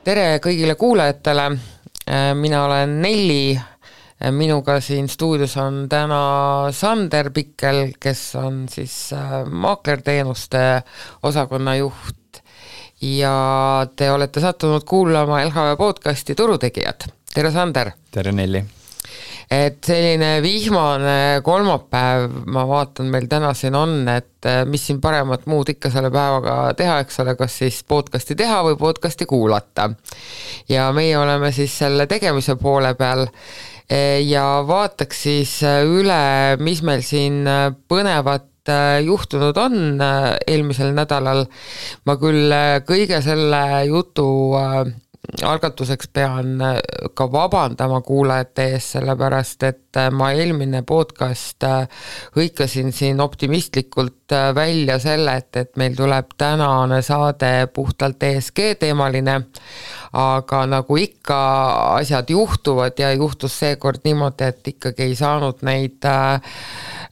Tere kõigile kuulajatele, mina olen Nelli, minuga siin stuudios on täna Sander Pikkel, kes on siis maaklerteenuste osakonna juht ja te olete sattunud kuulama LHV podcasti Turutegijad. Tere Sander! Tere Nelli! Et selline vihmane kolmapäev, ma vaatan meil täna siin on, et mis siin paremat muud ikka selle päevaga teha, eks ole, kas siis podcasti teha või podcasti kuulata. Ja meie oleme siis selle tegemise poole peal ja vaataks siis üle, mis meil siin põnevat juhtunud on eelmisel nädalal. Ma küll kõige selle jutu algatuseks pean ka vabandama kuulajate ees, sellepärast, et ma eelmine podcast hõikasin siin optimistlikult välja selle, et meil tuleb tänane saade puhtalt ESG teemaline, aga nagu ikka asjad juhtuvad ja juhtus seekord niimoodi, et ikkagi ei saanud neid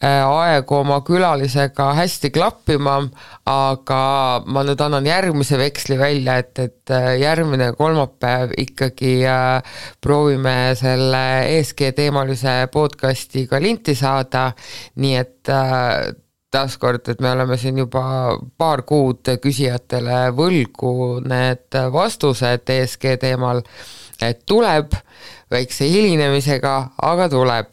aegu oma külalisega hästi klappima, aga ma nüüd annan järgmise veksli välja, et järgmine kolmapäev ikkagi proovime selle ESG teemalise podcasti ka linti saada, nii et taaskord, et me oleme siin juba paar kuud küsijatele võlgu need vastused ESG teemal, et tuleb väikse hilinemisega, aga tuleb.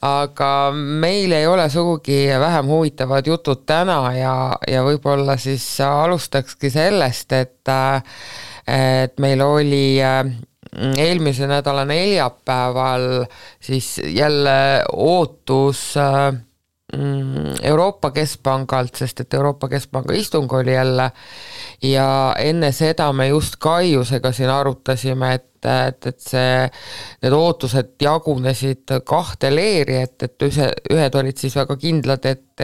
Aga meil ei ole sugugi vähem huvitavad jutud täna ja võib-olla siis alustakski sellest, et meil oli eelmise nädala neljapäeval siis jälle ootus Euroopa Keskpangalt, sest et Euroopa Keskpanga istung oli jälle ja enne seda me just Kaiusega siin arutasime, et need ootused jagunesid kahte leeri, et ühed olid siis väga kindlad, et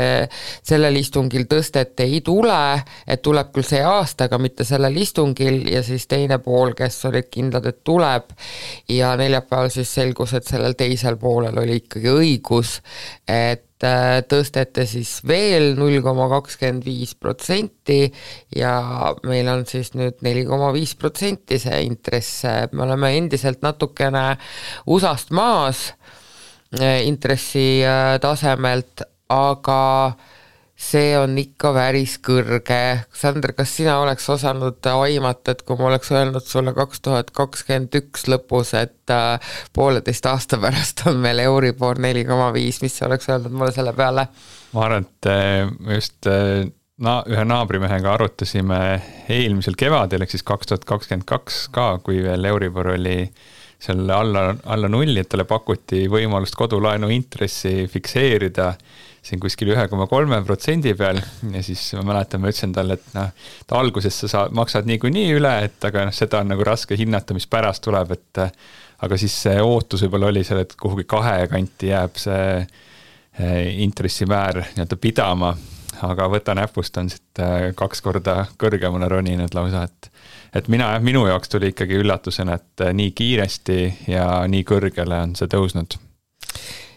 sellel istungil tõstet ei tule, et tuleb küll see aasta, aga mitte sellel istungil ja siis teine pool, kes olid kindlad, et tuleb ja neljapäeval siis selgus, et sellel teisel poolel oli ikkagi õigus, et tõstete siis veel 0,25% ja meil on siis nüüd 4,5% see intress. Me oleme endiselt natukene USA-st maas intressi tasemelt, aga see on ikka päris kõrge. Sander, kas sina oleks osanud aimata, et kui ma oleks öelnud sulle 2021 lõpus, et 1,5 aasta pärast on meil Euribor 4,5, mis sa oleks öelnud mulle selle peale? Ma arvan, et just ühe naabrimehega arutasime eelmisel kevadel, ehk siis 2022 ka, kui veel Euribor oli seal alla nulli, et talle pakuti võimalust kodulaenu intressi fikseerida siin kuskil 1,3% peal ja siis ma mäletan, ma ütlesin talle, et ta alguses sa maksad niikuinii üle, et aga seda on nagu raske hinnata, mis pärast tuleb, et aga siis see ootus võib-olla oli seal, et kuhugi 2 kanti jääb see intressimäär nii-öelda pidama, aga võta näpust on siit 2 korda kõrgemale roninud lausa, et minu jaoks tuli ikkagi üllatusena, et nii kiiresti ja nii kõrgele on see tõusnud.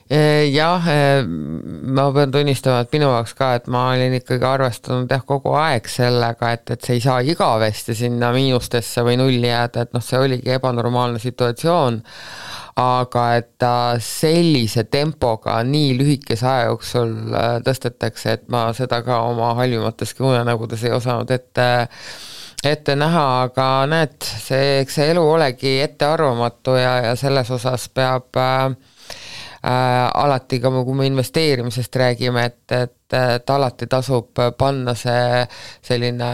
Jah, ma pean tunnistama, et minu jaoks ka, et ma olin ikkagi arvestanud kogu aeg sellega, et see ei saa igavesti sinna miinustesse või nulli jääda, et see oligi ebanormaalne situatsioon, aga et ta sellise tempoga nii lühikese aja jooksul tõstetakse, et ma seda ka oma halvimateski unenägudes ei osanud ette näha, aga näed, see elu olegi ettearvamatu ja selles osas peab alati ka, kui me investeerimisest räägime, et alati tasub panna see selline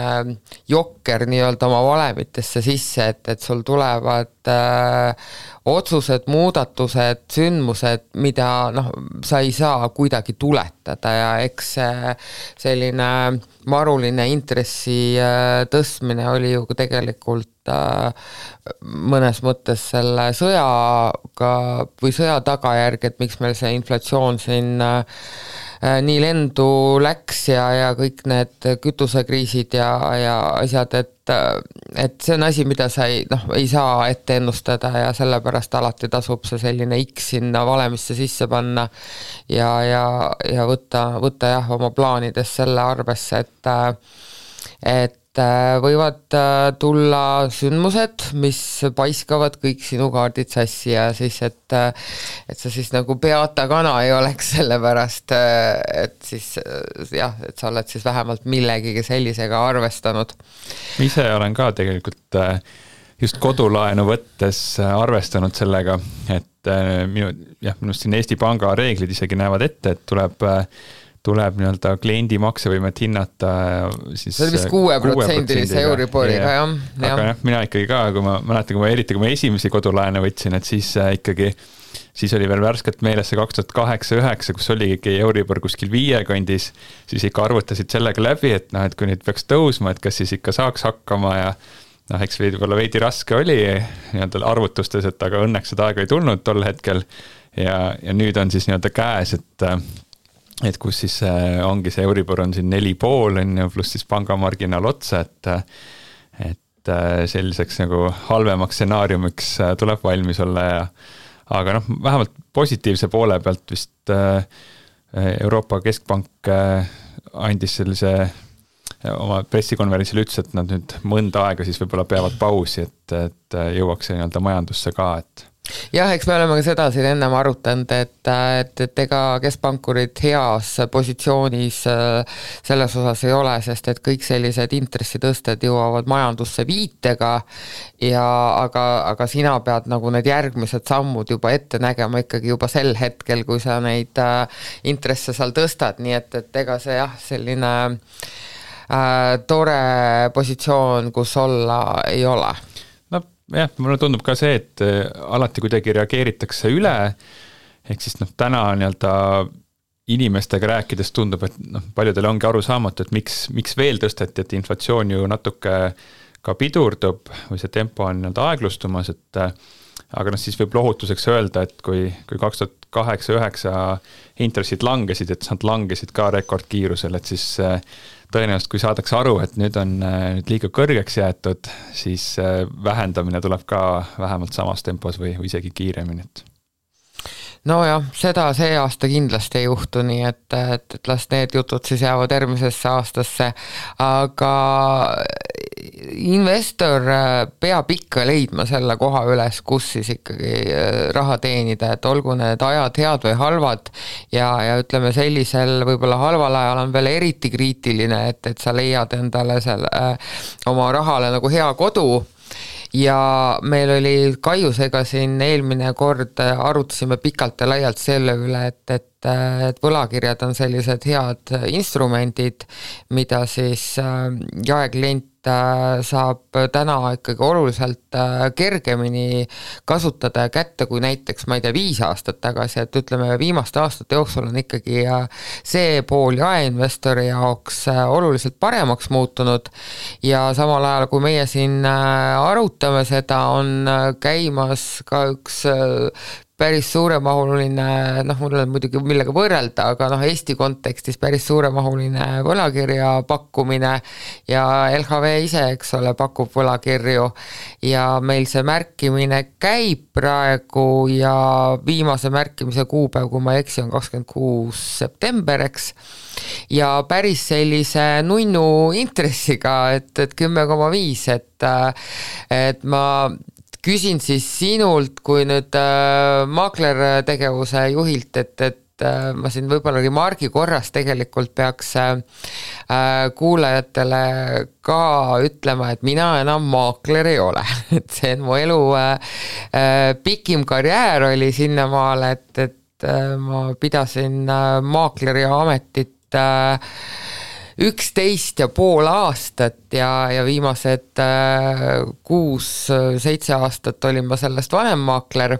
jokker nii-öelda oma valemitesse sisse, et sul tulevad otsused, muudatused, sündmused, mida sa ei saa kuidagi tuletada ja eks selline maruline intressi tõstmine oli ju tegelikult mõnes mõttes selle sõjaga või sõja tagajärg, et miks meil see inflatsioon siin nii lendu läks ja kõik need kütusekriisid ja asjad, et see on asi, mida sa ei saa ette ennustada ja sellepärast alati tasub see selline X sinna valemisse sisse panna ja võtta jah oma plaanides selle arvesse, et võivad tulla sündmused, mis paiskavad kõik sinu kaardid sassi ja siis, et sa siis nagu peata kana ei oleks sellepärast, et siis jah, et sa oled siis vähemalt millegagi sellisega arvestanud. Ma ise olen ka tegelikult just kodulaenu võttes arvestanud sellega, et minust siin Eesti Panga reeglid isegi näevad ette, et tuleb nii-öelda kliendi maksevõimet hinnata siis see oli vist 6%-lise Euriboriga, jah. Aga mina ikkagi ka, kui ma mäletan, kui ma esimesi kodulaene võtsin, et siis oli veel värskelt meeles see 2008-2009, kus oli ikkagi Euribor kuskil 5 kandis, siis ikka arvutasid sellega läbi, et kui nüüd peaks tõusma, et kas siis ikka saaks hakkama ja eks võib-olla veidi raske oli nii-öelda arvutustes, et aga õnneks seda aega ei tulnud tol hetkel ja nüüd on siis nii-öelda käes, et kus siis ongi see Euribor on siin 4,5 pluss siis pangamarginaal otsa, et selliseks nagu halvemaks stsenaariumiks tuleb valmis olla aga vähemalt positiivse poole pealt vist Euroopa Keskpank andis sellise oma pressikonverentsil ütles, et nad nüüd mõnda aega siis võib-olla peavad pausi, et jõuaks see nii-öelda majandusse ka, et jah, eks me oleme ka seda siin ennem arutanud, et ega keskpankurid heas positsioonis selles osas ei ole, sest et kõik sellised intressitõsted jõuavad majandusse viitega aga sina pead nagu need järgmised sammud juba ette nägema ikkagi juba sel hetkel, kui sa neid intresse seal tõstad, nii et ega see jah, selline tore positsioon, kus olla ei ole. Jah, mulle tundub ka see, et alati kuidagi reageeritakse üle, ehk siis täna nii-öelda inimestega rääkides tundub, et paljudel ongi aru saamatu, et miks veel tõsteti, et inflatsioon ju natuke ka pidurdub või see tempo on nii-öelda aeglustumas, aga siis võib lohutuseks öelda, et kui 2008-2009 intressid langesid, et nad langesid ka rekordkiirusel, et siis tõenäoliselt, kui saadakse aru, et nüüd on liiga kõrgeks jäetud, siis vähendamine tuleb ka vähemalt samas tempos või isegi kiiremini. Nojah, seda see aasta kindlasti ei juhtu, nii et las need jutud siis jäävad järgmisesse aastasse, aga investor peab ikka leidma selle koha üles, kus siis ikkagi raha teenida, et olgu need ajad head või halvad ja ütleme sellisel võib-olla halval ajal on veel eriti kriitiline, et sa leiad endale oma rahale nagu hea kodu. Ja meil oli Kaiusega siin eelmine kord arutasime pikalt ja laialt selle üle, et võlakirjad on sellised head instrumendid, mida siis jaeklient saab täna ikkagi oluliselt kergemini kasutada kätte kui näiteks, ma ei tea, 5 aastat tagasi, et ütleme viimaste aastate jooksul on ikkagi see pool jaeinvestori jaoks oluliselt paremaks muutunud ja samal ajal, kui meie siin arutame seda, on käimas ka üks päris suuremahuline, mul on muidugi millega võrrelda, aga Eesti kontekstis päris suuremahuline võlakirja pakkumine ja LHV ise, eks ole, pakub võlakirju ja meil see märkimine käib praegu ja viimase märkimise kuupäev, kui ma ei eksi, on 26. september, eks, ja päris sellise nunnu intressiga, et 10,5, et ma küsin siis sinult, kui nüüd maaklertegevuse juhilt, et ma siin võib-olla remargi korras tegelikult peaks kuulajatele ka ütlema, et mina enam maakler ei ole. Et see on mu elu pikim karjäär oli sinnamaal, et ma pidasin maakleri ametit 11,5 aastat ja viimased 6-7 aastat olin ma sellest vanemmaakler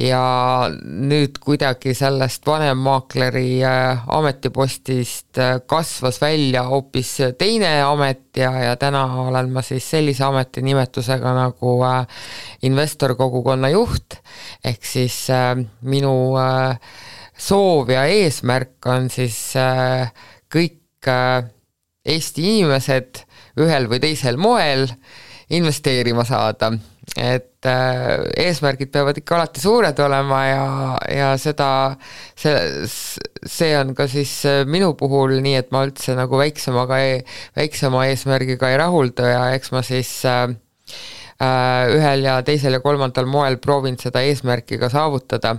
ja nüüd kuidagi sellest vanemmaakleri ametipostist kasvas välja hoopis teine amet ja täna olen ma siis sellise ametinimetusega nagu investorkogukonna juht, ehk siis minu soov ja eesmärk on siis kõik Eesti inimesed ühel või teisel moel investeerima saada, et eesmärgid peavad ikka alati suured olema ja see on ka siis minu puhul nii, et ma üldse nagu väiksema eesmärgiga ei rahulda ja eks ma siis ühel ja teisel ja kolmandal moel proovin seda eesmärki ka saavutada.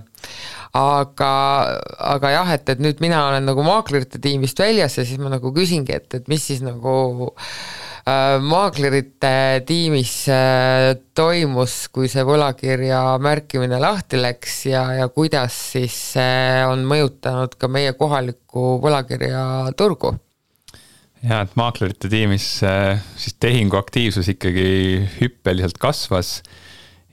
Aga jah, et nüüd mina olen nagu maaklerite tiimist väljas ja siis ma nagu küsingi, et mis siis nagu maaklerite tiimis toimus, kui see võlakirja märkimine lahti läks ja kuidas siis on mõjutanud ka meie kohalikku võlakirja turgu? Ja, et maaklerite tiimis siis tehingu aktiivsus ikkagi hüppeliselt kasvas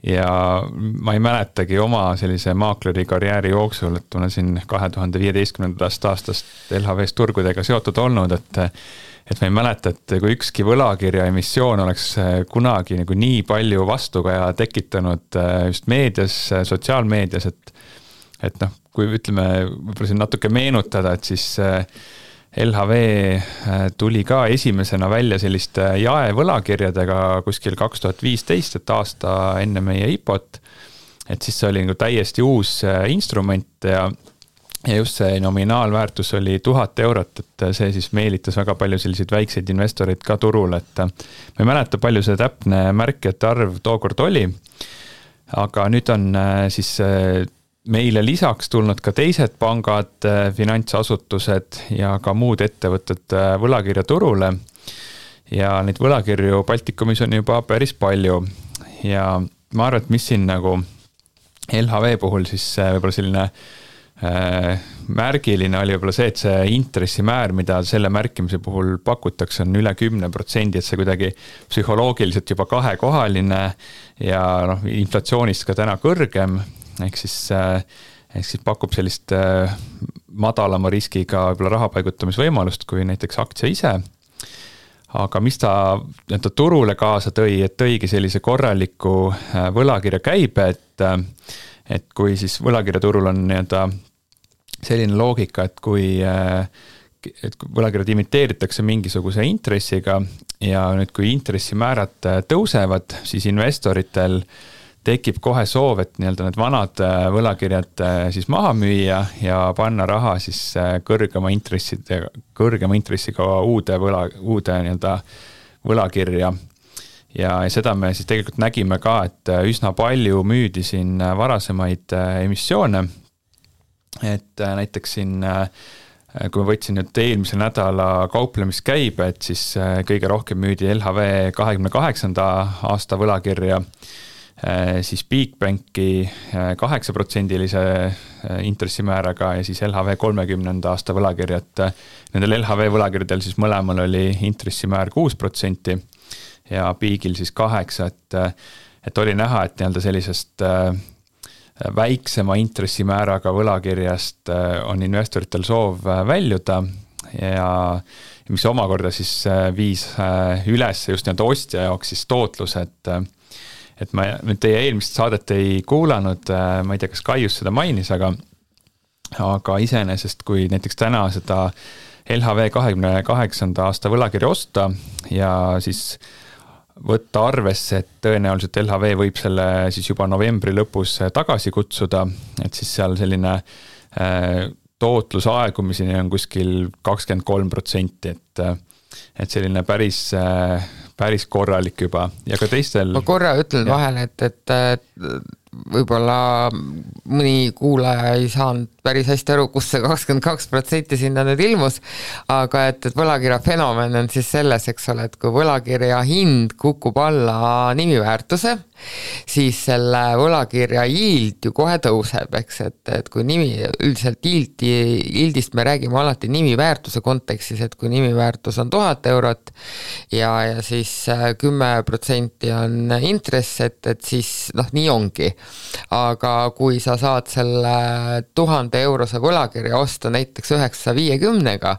ja ma ei mäletagi oma sellise maakleri karjääri jooksul, et olen siin 2015. aastast LHV-s turgudega seotud olnud, et ma ei mäleta, et kui ükski võlakirja emissioon oleks kunagi nagu nii palju vastukaja tekitanud just meedias, sotsiaalmeedias, et noh, kui ütleme, võib-olla siin natuke meenutada, et siis LHV tuli ka esimesena välja selliste jaevõlakirjadega kuskil 2015, et aasta enne meie IPO-t, et siis see oli nagu täiesti uus instrument ja just see nominaalväärtus oli 1000 eurot, et see siis meelitas väga palju selliseid väikseid investoreid ka turul, et ma ei mäleta, palju see täpne märkijate arv tookord oli, aga nüüd on siis meile lisaks tulnud ka teised pangad, finantsasutused ja ka muud ettevõtted võlakirja turule ja neid võlakirju Baltikumis on juba päris palju ja ma arvan, et mis siin nagu LHV puhul siis võib-olla selline märgiline oli võib-olla see, et see intressimäär, mida selle märkimise puhul pakutakse, on üle 10%, et see kuidagi psühholoogiliselt juba kahekohaline ja noh, inflatsioonist ka täna kõrgem, ehk siis pakub sellist madalama riskiga võib-olla raha paigutamisvõimalust kui näiteks aktsia ise. Aga mis ta turule kaasa tõi, et tõigi sellise korraliku võlakirja käibe, et kui siis võlakirjaturul on selline loogika, et kui võlakirjad imiteeritakse mingisuguse intressiga ja nüüd kui intressimäärad tõusevad, siis investoritel tekib kohe soov, et need vanad võlakirjad siis maha müüa ja panna raha siis kõrgema intressiga uude võlakirja. Ja seda me siis tegelikult nägime ka, et üsna palju müüdi siin varasemaid emissioone. Et näiteks siin, kui ma võtsin nüüd eelmise nädala kauplemiskäibe, et siis kõige rohkem müüdi LHV 28. aasta võlakirja, siis Bigbanki 8%-lise intressimääraga ja siis LHV 30. aasta võlakirjad. Nendel LHV võlakirjadel siis mõlemal oli intressimäär 6% ja Bigil siis 8%, et oli näha, et sellisest väiksema intressimääraga võlakirjast on investoritel soov väljuda ja mis omakorda siis viis üles just ostja jaoks siis tootlus, et ma nüüd teie eelmist saadet ei kuulanud, ma ei tea, kas Kaius seda mainis, aga iseenesest, kui näiteks täna seda LHV 28. aasta võlakirja osta ja siis võtta arvesse, et tõenäoliselt LHV võib selle siis juba novembri lõpus tagasi kutsuda, et siis seal selline tootlus aegumiseni on kuskil 23%, et selline päris korralik juba ja ka teistel. Ma korra ütlen vahele, et võib-olla mõni kuulaja ei saanud päris hästi aru, kus see 22% sinna nüüd ilmus, aga et võlakirja fenomen on siis selles, eks ole, et kui võlakirja hind kukub alla nimiväärtuse, siis selle võlakirja yield ju kohe tõuseb, eks, et kui üldiselt yieldist me räägime alati nimiväärtuse kontekstis, et kui nimiväärtus on 1000 eurot ja siis 10% on intress, et siis nii ongi. Aga kui sa saad selle 1000 eurose võlakirja osta näiteks 950-ga,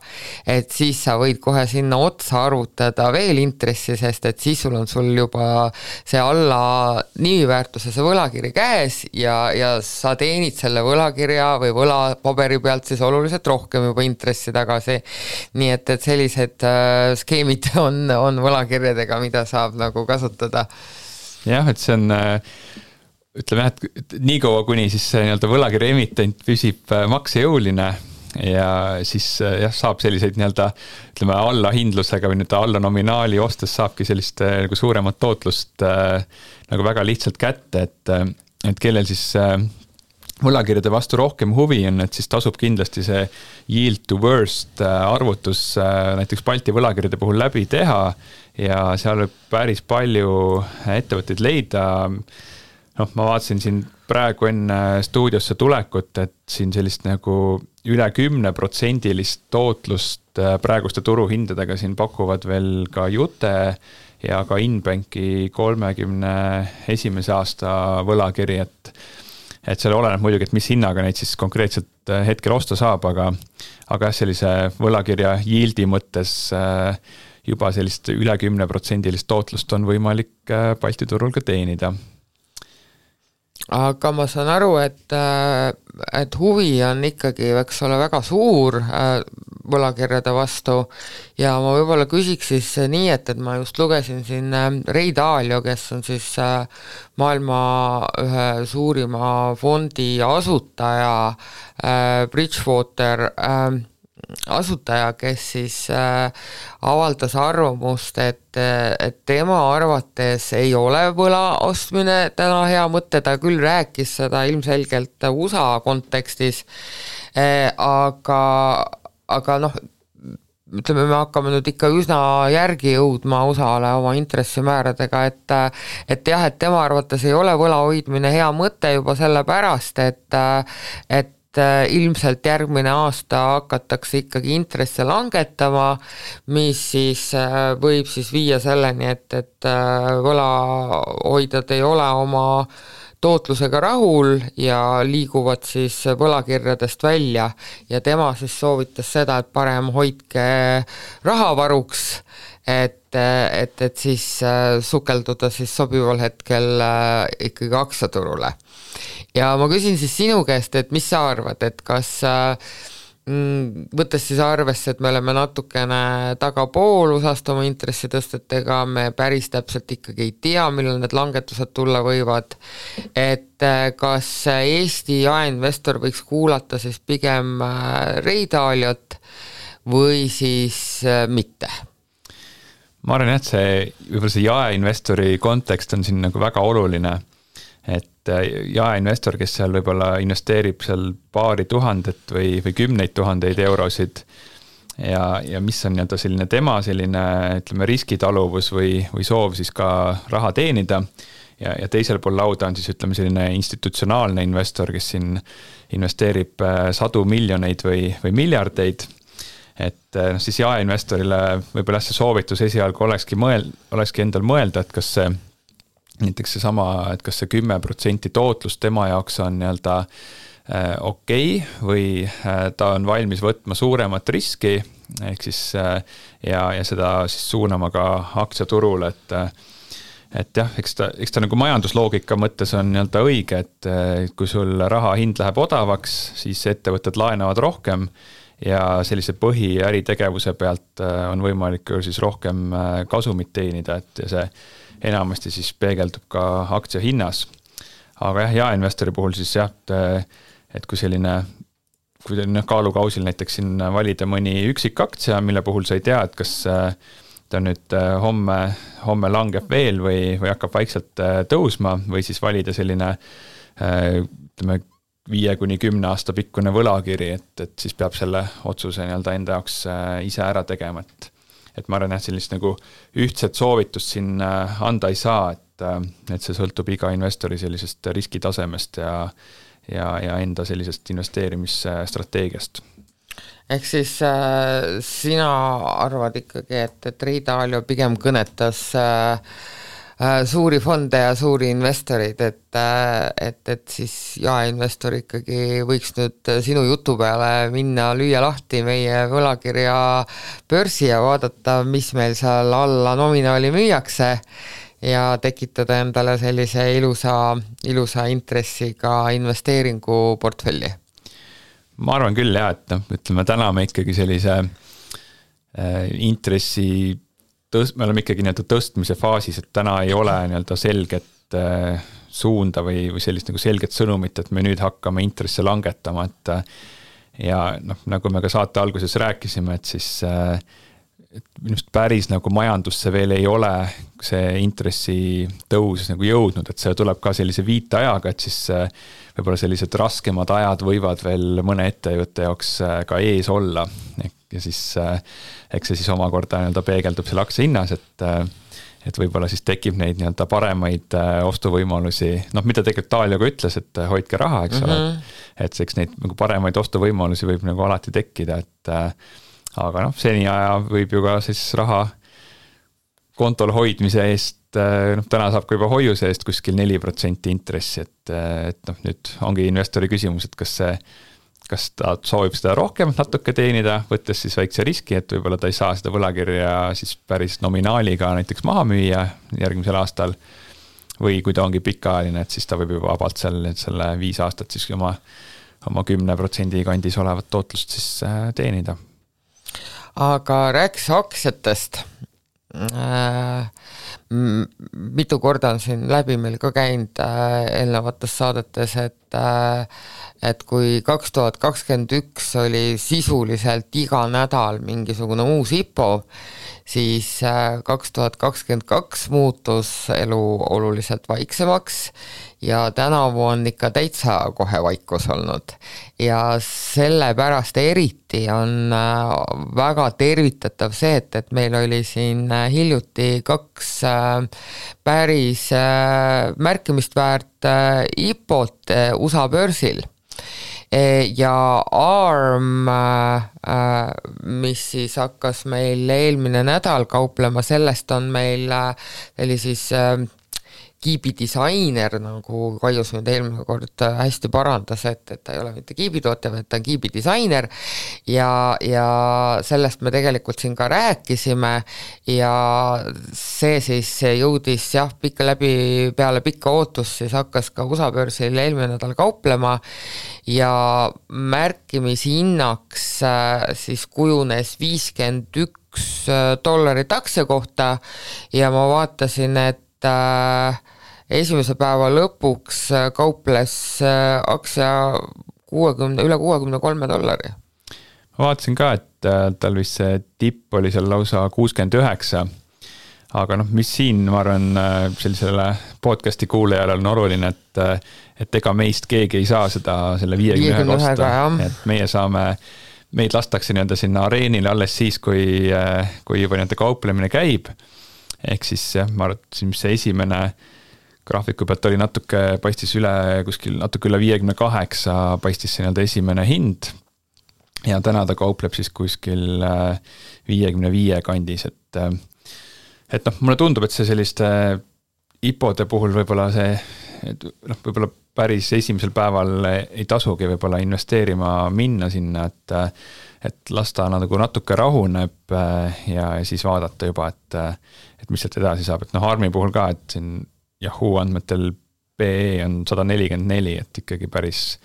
et siis sa võid kohe sinna otsa arvutada veel intressi, sest et siis sul juba see alla nimiväärtuse see võlakiri käes ja sa teenid selle võlakirja või võlapaberi pealt siis oluliselt rohkem juba intressi tagasi. Nii et sellised skeemid on võlakirjadega, mida saab nagu kasutada. Jah, et see on ütleme, et nii kaua, kuni siis see võlakirja emitent püsib maksejõuline, ja siis saab selliseid nii-öelda ütleme allahindlusega või nüüd alla nominaali ostes saabki sellist nagu suuremat tootlust nagu väga lihtsalt kätte, et kellel siis võlakirjade vastu rohkem huvi on, et siis tasub kindlasti see yield to worst arvutus näiteks Balti võlakirjade puhul läbi teha ja seal võib päris palju ettevõtteid leida. Ma vaatasin siin praegu enne stuudiosse tulekut, et siin sellist nagu üle 10% tootlust praeguste turuhindadega siin pakuvad veel ka Jute ja ka Inbanki 31. aasta võlakiri, et seal oleneb muidugi, et mis hinnaga neid siis konkreetselt hetkel osta saab, aga sellise võlakirja yieldi mõttes juba sellist üle 10% tootlust on võimalik Balti turul ka teenida. Aga ma saan aru, et huvi on ikkagi, eks ole, väga suur võlakirjade vastu ja ma võib-olla küsiks siis nii, et ma just lugesin siin Ray Dalio, kes on siis maailma ühe suurima fondi asutaja, Bridgewater asutaja, kes siis avaldas arvamust, et tema arvates ei ole võla ostmine täna hea mõte, ta küll rääkis seda ilmselgelt USA kontekstis, aga ütleme, me hakkame nüüd ikka üsna järgi jõudma USA-le oma intressimääradega, et jah, et tema arvates ei ole võla hoidmine hea mõte juba sellepärast, et ilmselt järgmine aasta hakatakse ikkagi intresse langetama, mis siis võib siis viia selleni, et võlahoidjad ei ole oma tootlusega rahul ja liiguvad siis võlakirjadest välja ja tema siis soovitas seda, et parem hoidke rahavaruks, et siis sukelduda siis sobival hetkel ikkagi aktsiaturule. Ja ma küsin siis sinu käest, et mis sa arvad, et kas võttes siis arvesse, et me oleme natukene tagapool USA-st oma intressitõstetega, me päris täpselt ikkagi ei tea, millal need langetused tulla võivad, et kas Eesti jaeinvestor võiks kuulata siis pigem Ray Daliot või siis mitte? Ma arvan, et võib-olla see jaeinvestori kontekst on siin nagu väga oluline, et jaeinvestor, kes seal võib-olla investeerib seal paari tuhandet või 10 000 eurosid ja mis on nii-öelda selline tema selline, ütleme, riskitaluvus või soov siis ka raha teenida ja teisel pool lauda on siis, ütleme, selline institutsionaalne investor, kes siin investeerib sadu miljoneid või miljardeid, et siis jaeinvestorile võib-olla see soovitus esialgu olekski endal mõelda, et kas see näiteks seesama, et kas see 10% tootlus tema jaoks on nii-öelda okei või ta on valmis võtma suuremat riski, ehk siis ja seda siis suunama ka aktsiaturule, et jah, eks ta nagu majandusloogika mõttes on nii-öelda õige, et kui sul raha hind läheb odavaks, siis ettevõtted laenavad rohkem ja sellise põhiäritegevuse pealt on võimalik siis rohkem kasumit teenida, et see enamasti siis peegeldub ka aktsia hinnas. Aga jah, jaeinvestori puhul siis jah, et kui selline kaalukausil näiteks siin valida mõni üksik aktsia, mille puhul sa ei tea, et kas ta nüüd homme langeb veel või hakkab vaikselt tõusma või siis valida selline 5-10 aasta pikkune võlakiri, et siis peab selle otsuse nii-öelda enda jaoks ise ära tegema, et ma arvan, et sellist nagu ühtset soovitust siin anda ei saa, et see sõltub iga investori sellisest riskitasemest ja enda sellisest investeerimisstrateegiast. Ehk siis sina arvad ikkagi, et Ray Dalio pigem kõnetas suuri fonde ja suuri investorid, et siis jaeinvestor ikkagi võiks nüüd sinu jutu peale minna, lüüa lahti meie võlakirja börsi ja vaadata, mis meil seal alla nominaali müüakse ja tekitada endale sellise ilusa intressiga investeeringuportfelli. Ma arvan küll jah, et ütleme täna me ikkagi sellise intressi me oleme ikkagi nii-öelda tõstmise faasis, et täna ei ole nii-öelda selget suunda või sellist nagu selget sõnumit, et me nüüd hakkame intresse langetama, ja nagu me ka saate alguses rääkisime, et siis et minust päris nagu majandusse veel ei ole see intressi tõus nagu jõudnud, et see tuleb ka sellise viiteajaga, et siis võib-olla sellised raskemad ajad võivad veel mõne ettevõtte jaoks ka ees olla. Ja siis eks see siis omakorda nii-öelda peegeldub selle aktsia hinnas, et võib-olla siis tekib neid nii-öelda paremaid ostuvõimalusi, mida tegelikult Taalio ka ütles, et hoidke raha, eks ole, et eks neid nagu paremaid ostuvõimalusi võib nagu alati tekkida, et aga seni aja võib ju ka siis raha kontol hoidmise eest, täna saab ka juba hoiuse eest kuskil 4% intressi, et nüüd ongi investori küsimus, et kas ta soovib seda rohkem natuke teenida, võttes siis väikse riski, et võib-olla ta ei saa seda võlakirja siis päris nominaaliga näiteks maha müüa järgmisel aastal, või kui ta ongi pikaajaline, et siis ta võib juba vabalt selle 5 aastat siis oma 10% kandis olevat tootlust siis teenida. Aga rääkis aktsiatest. Mitu korda on siin läbi meil ka käinud eelnevates saadetes, et kui 2021 oli sisuliselt iga nädal mingisugune uus IPO, siis 2022 muutus elu oluliselt vaiksemaks ja tänavu on ikka täitsa kohe vaikus olnud. Ja sellepärast eriti on väga tervitatav see, et meil oli siin hiljuti 2 päris märkimist väärt IPO-t USA börsil. Ja ARM, mis siis hakkas meil eelmine nädal kauplema, sellest on meil oli siis Kiibi disainer, nagu Kaius nüüd eelmine kord hästi parandas, et ta ei ole mitte Kiibi tootja, vaid ta on Kiibi disainer ja sellest me tegelikult siin ka rääkisime ja see siis jõudis peale pikka ootust siis hakkas ka USA börsil eelmine nädal kauplema ja märkimishinnaks siis kujunes $51 aktsia kohta ja ma vaatasin, et esimese päeva lõpuks kauples aktsia üle $63. Ma vaatasin ka, et tal vist see tipp oli seal lausa 69, aga mis siin, ma arvan, sellisele podcasti kuulajale on oluline, et ega meist keegi ei saa selle 51 osta, et meid lastakse nii-öelda sinna areenile alles siis, kui juba nii-öelda kauplemine käib, ehk siis ma arvasin, mis see esimene graafiku pealt oli paistis natuke üle 58 paistis see nii-öelda esimene hind ja täna ta kaupleb siis kuskil 55 kandis, et mulle tundub, et see selliste IPO-de puhul võib-olla võib-olla päris esimesel päeval ei tasugi võib-olla investeerima minna sinna, et lasta nagu natuke rahuneb ja siis vaadata juba, et mis sealt edasi saab, et ARM-i puhul ka, et siin Yahoo andmetel PE on 144, et ikkagi päris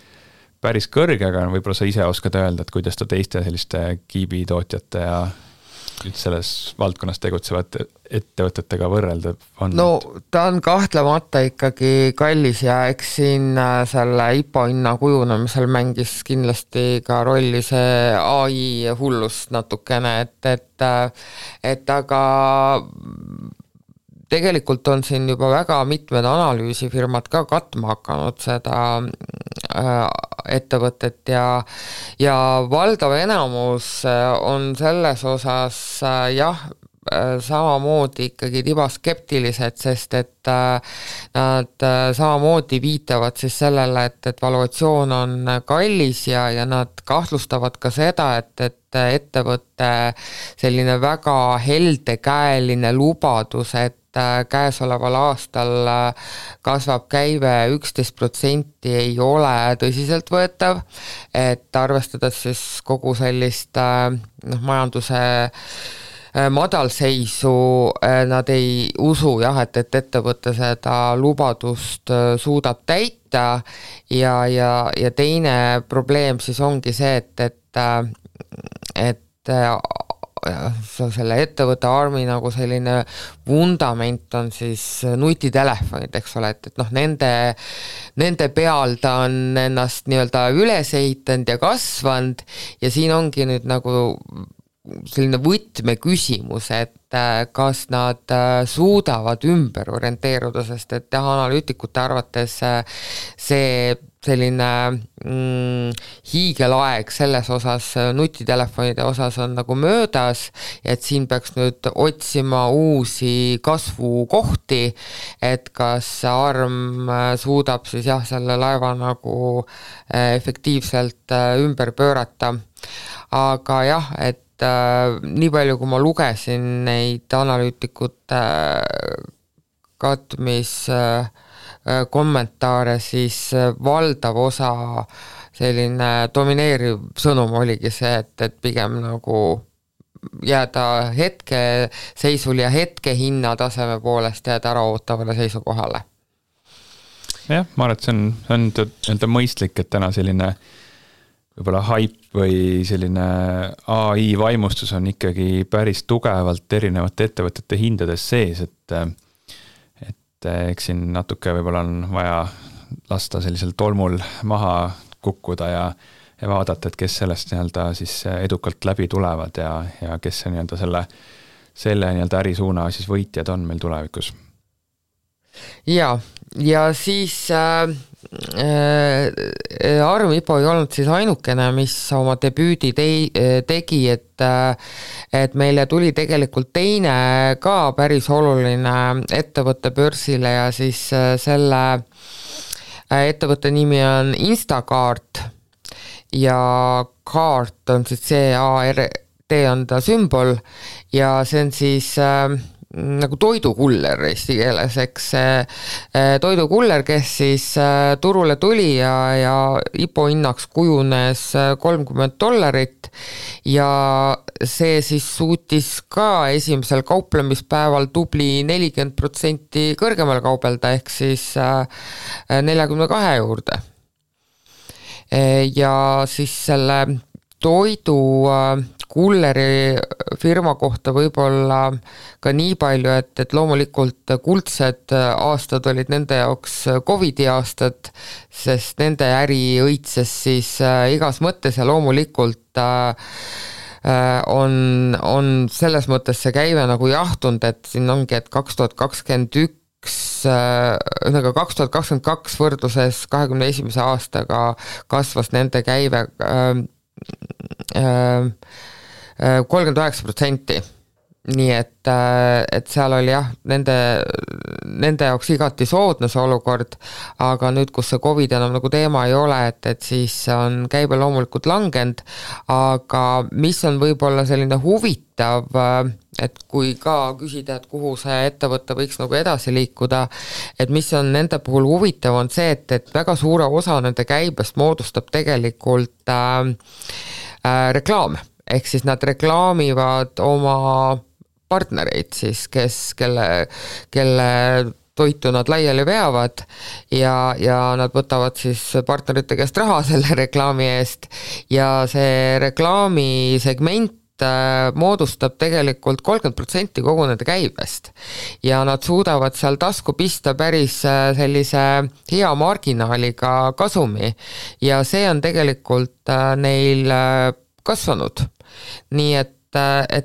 kõrge, aga võib-olla sa ise oskad öelda, et kuidas ta teiste selliste Kiibi tootjate ja selles valdkonnas tegutsevate ettevõtetega võrrelda on? No ta on kahtlemata ikkagi kallis ja eks siin selle IPO hinna kujunemisel mängis kindlasti ka rolli see AI hullus natukene, et aga tegelikult on siin juba väga mitmed analüüsifirmad ka katma hakanud seda ettevõtet ja valdav enamus on selles osas samamoodi ikkagi tibaskeptilised, sest et nad samamoodi viitavad siis sellele, et valuatsioon on kallis ja nad kahtlustavad ka seda, et ettevõtte selline väga heldekäeline lubadus, et käesoleval aastal kasvab käive 11% ei ole tõsiseltvõetav, et arvestades siis kogu sellist majanduse madalseisu, nad ei usu et ettevõte seda lubadust suudab täita ja teine probleem siis ongi see, et selle ettevõtte armi nagu selline vundament on siis nutitelefonid, eks ole, et noh, nende peal ta on ennast nii-öelda üles ehitanud ja kasvanud ja siin ongi nüüd nagu selline võtmeküsimus, et kas nad suudavad ümber orienteeruda, sest et analüütikute arvates see selline hiigelaeg selles osas, nutitelefonide osas on nagu möödas, et siin peaks nüüd otsima uusi kasvukohti, et kas arm suudab siis jah, selle laeva nagu efektiivselt ümber pöörata, aga jah, et nii palju, kui ma lugesin neid analüütikute katmis kommentaare, siis valdav osa selline domineeriv sõnum oligi see, et pigem nagu jääda hetkeseisul ja hetkehinna taseme poolest jääda ära ootavale seisukohale. Jah, ma arvan, et see on mõistlik, et täna selline võib-olla hype või selline AI vaimustus on ikkagi päris tugevalt erinevate ettevõtete hindades sees, et eks siin natuke võib-olla on vaja lasta sellisel tolmul maha kukkuda ja vaadata, et kes sellest nii-öelda siis edukalt läbi tulevad ja kes see nii-öelda selle nii-öelda ärisuuna siis võitjad on meil tulevikus. Ja siis Arm IPO ei olnud siis ainukene, mis oma debüüdi tegi, et meile tuli tegelikult teine ka päris oluline ettevõtte börsile ja siis selle ettevõtte nimi on Instacart ja Cart on siis C-A-R-T on ta sümbol ja see on siis nagu toidukuller eesti keeles, eks toidukuller, kes siis turule tuli ja IPO hinnaks kujunes $30 ja see siis suutis ka esimesel kauplemispäeval tubli 40% kõrgemal kaubelda ehk siis 42 juurde. Ja siis selle toidu kulleri firma kohta võib-olla ka nii palju, et loomulikult kuldsed aastad olid nende jaoks Covidi aastad, sest nende äri õitses siis igas mõttes ja loomulikult on selles mõttes see käive nagu jahtunud, et siin ongi, et 2021 2022 võrdluses 2021. aastaga kasvas nende käive 39%. Nii et seal oli jah, nende jaoks igati soodne see olukord, aga nüüd, kus see COVID enam nagu teema ei ole, et siis on käibe loomulikult langenud, aga mis on võib-olla selline huvitav, et kui ka küsida, et kuhu see ettevõte võiks nagu edasi liikuda, et mis on nende puhul huvitav, on see, et väga suure osa nende käibest moodustab tegelikult reklaam, ehk siis nad reklaamivad oma partnereid siis, kelle toitu nad laiali veavad ja nad võtavad siis partnerite käest raha selle reklaami eest ja see reklaamisegment moodustab tegelikult 30% kogu nende käibest ja nad suudavad seal tasku pista päris sellise hea marginaaliga kasumi ja see on tegelikult neil kasvanud. Nii et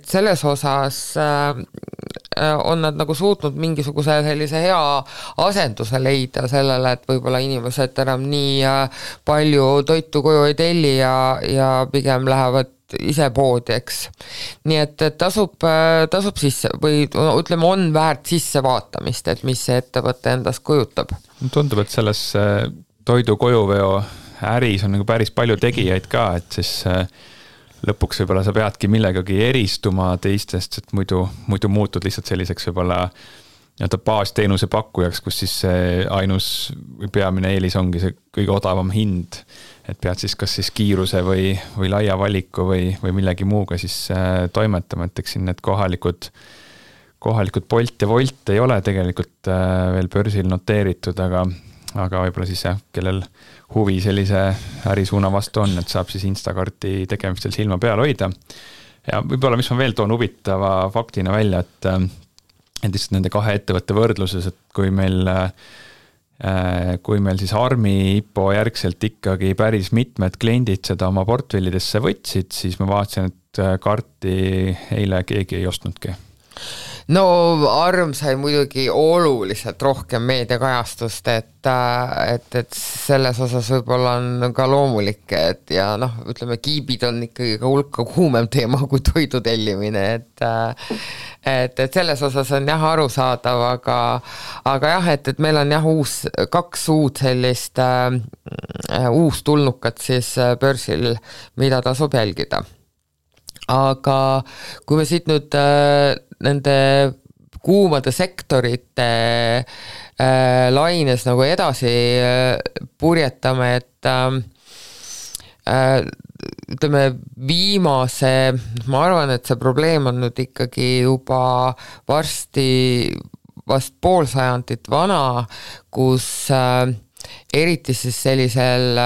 selles osas on nad nagu suutnud mingisuguse sellise hea asenduse leida sellele, et võib-olla inimesed enam nii palju toitu koju ei telli ja pigem lähevad ise poodi, eks. Nii et tasub sisse või ütleme, on väärt sisse vaatamist, et mis see ettevõte endast kujutab. Tundub, et selles toidu kojuveo äris on nagu päris palju tegijaid ka, et siis lõpuks võib-olla sa peadki millegagi eristuma teistest, et muidu muutud lihtsalt selliseks võib-olla baasteenuse pakkujaks, kus siis see ainus või peamine eelis ongi see kõige odavam hind, et pead siis kas siis kiiruse või laia valiku või millegi muuga siis toimetama, et eks siin need kohalikud Bolt ja Volt ei ole tegelikult veel börsil noteeritud, aga võib-olla siis kellel huvi sellise ärisuuna vastu on, et saab siis Instacarti tegemistel silma peal hoida. Ja võib-olla, mis ma veel toon huvitava faktina välja, et lihtsalt nende kahe ettevõtte võrdluses, et kui meil siis Armi IPO järgselt ikkagi päris mitmed kliendid seda oma portfellidesse võtsid, siis ma vaatasin, et Karti eile keegi ei ostnudki. No Arm sai muidugi oluliselt rohkem meediakajastust, et selles osas võib-olla on ka loomulik, et ja ütleme, kiibid on ikkagi ka hulka kuumem teema kui toidu tellimine, et selles osas on jah arusaadav, aga jah, et meil on jah kaks uut sellist uustulnukat siis börsil, mida tasub jälgida. Aga kui me siit nüüd nende kuumade sektorite laines nagu edasi purjetame, et ütleme viimase, ma arvan, et see probleem on nüüd ikkagi juba vast pool sajandit vana, kus eriti siis sellisel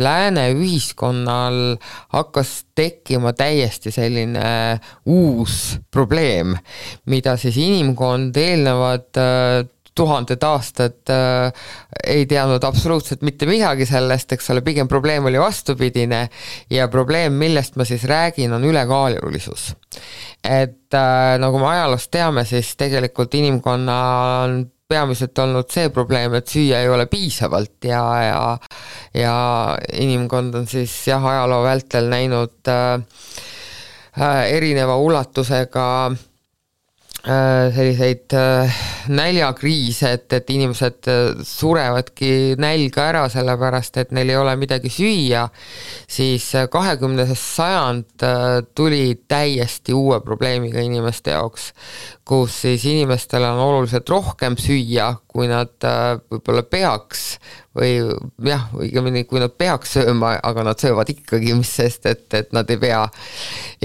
lääne ühiskonnal hakkas tekkima täiesti selline uus probleem, mida siis inimkond eelnevad 1000 aastat ei teadnud absoluutselt mitte midagi sellest, eks ole, pigem probleem oli vastupidine ja probleem, millest ma siis räägin, on ülekaalulisus. Et nagu me ajaloost teame, siis tegelikult inimkonna on peamiselt olnud see probleem, et süüa ei ole piisavalt ja inimkond on siis ajaloo vältel näinud erineva ulatusega selliseid näljakriise, et inimesed surevadki nälga ära sellepärast, et neil ei ole midagi süüa, siis 20. sajand tuli täiesti uue probleemiga inimeste jaoks, kus siis inimestel on oluliselt rohkem süüa, kui nad võib-olla peaks või jah, õigemini kui nad peaks sööma, aga nad söövad ikkagi, mis sest, et nad ei pea.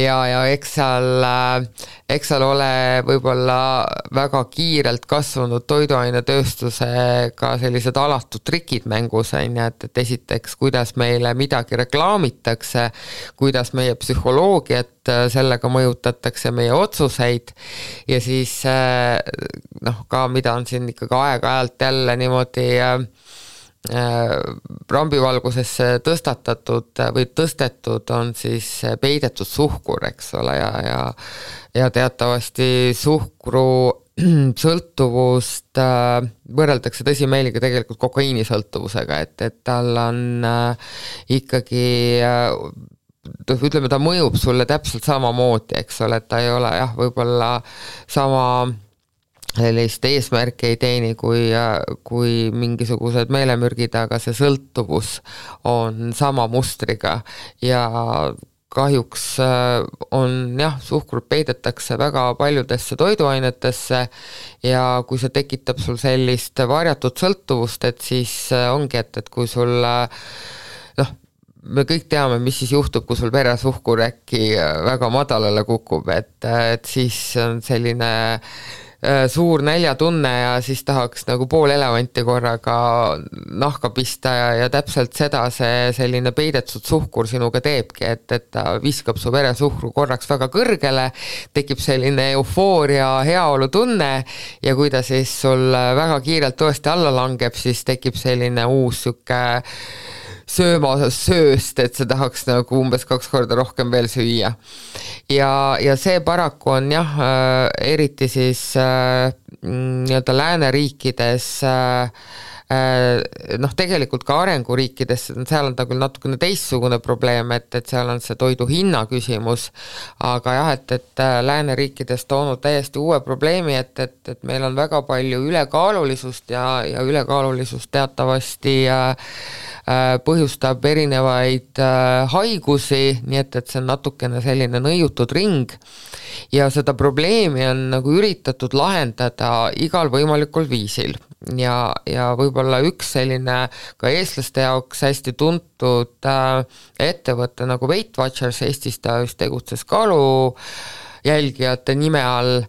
Ja eks seal ole võib-olla väga kiirelt kasvanud toiduainetööstusega sellised alatud trikid mängus, et esiteks, kuidas meile midagi reklaamitakse, kuidas meie psühholoogiat sellega mõjutatakse, meie otsuseid ja siis ka mida on siin ikkagi aeg-ajalt jälle niimoodi rambivalgusesse tõstetud on siis peidetud suhkur, eks ole, ja teatavasti suhkru sõltuvust võrreldakse tõsimeeliga tegelikult kokaiinisõltuvusega, et tal on ikkagi ütleme, ta mõjub sulle täpselt samamoodi, eks ole, et ta ei ole jah, võib-olla sama sellist eesmärki ei teeni kui mingisugused meelemürgid, aga see sõltuvus on sama mustriga ja kahjuks on jah, suhkrut peidetakse väga paljudesse toiduainetesse ja kui see tekitab sul sellist varjatud sõltuvust, et siis ongi, et kui sul me kõik teame, mis siis juhtub, kui sul veresuhkur äkki väga madalale kukub, et siis on selline suur näljatunne ja siis tahaks nagu pool elevanti korraga nahka pista ja täpselt seda see selline peidetud suhkur sinuga teebki, et ta viskab su veresuhkru korraks väga kõrgele, tekib selline eufooria, heaolu tunne ja kui ta siis sul väga kiirelt tõesti alla langeb, siis tekib selline uus süke sööst, et see tahaks nagu umbes 2 korda rohkem veel süüa. Ja see paraku on jah, eriti siis nii-öelda lääneriikides, tegelikult ka arenguriikides, seal on ta küll natukene teistsugune probleem, et seal on see toidu hinna küsimus, aga jah, et lääneriikides toonud täiesti uue probleemi, et meil on väga palju ülekaalulisust ja ülekaalulisust teatavasti põhjustab erinevaid haigusi, nii et see on natukene selline nõiutud ring ja seda probleemi on nagu üritatud lahendada igal võimalikul viisil ja võib-olla üks selline ka eestlaste jaoks hästi tuntud ettevõte nagu Weight Watchers, Eestis ta just tegutses kalu jälgijate nime all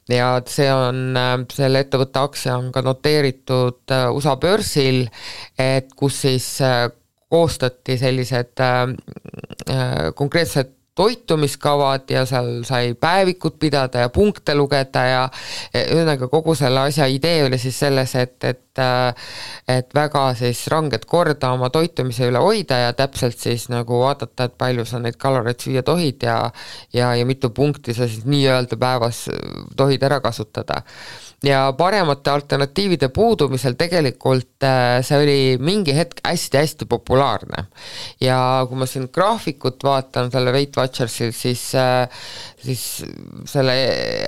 ja see on, selle ettevõtte aktsia on ka noteeritud USA börsil, et kus siis koostati sellised konkreetsed toitumiskavad ja seal sai päevikut pidada ja punkte lugeda ja ühesõnaga kogu selle asja idee oli siis selles, et väga siis ranget korda oma toitumise üle hoida ja täpselt siis nagu vaadata, et palju sa neid kaloreid süüa tohid ja mitu punkti sa siis nii-öelda päevas tohid ära kasutada. Ja paremate alternatiivide puudumisel tegelikult see oli mingi hetk hästi-hästi populaarne. Ja kui ma siin graafikut vaatan selle Weight Watchersil, siis selle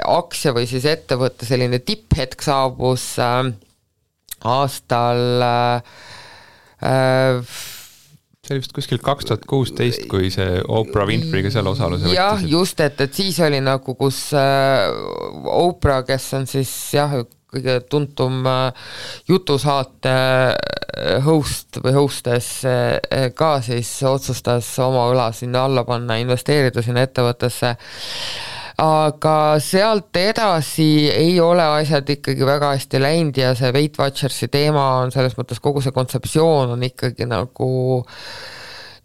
aktsia või siis ettevõtte selline tipphetk saabus aastal see oli vist kuskil 2016, kui see Oprah Winfreyga seal osaluse võttis. Jah, just, et siis oli nagu, kus Oprah, kes on siis kõige tuntum jutusaate host või hostess ka siis otsustas oma õla sinna alla panna, investeerida sinna ettevõttesse. Aga sealt edasi ei ole asjad ikkagi väga hästi läinud ja see Weight Watchersi teema on selles mõttes, kogu see kontseptsioon on ikkagi nagu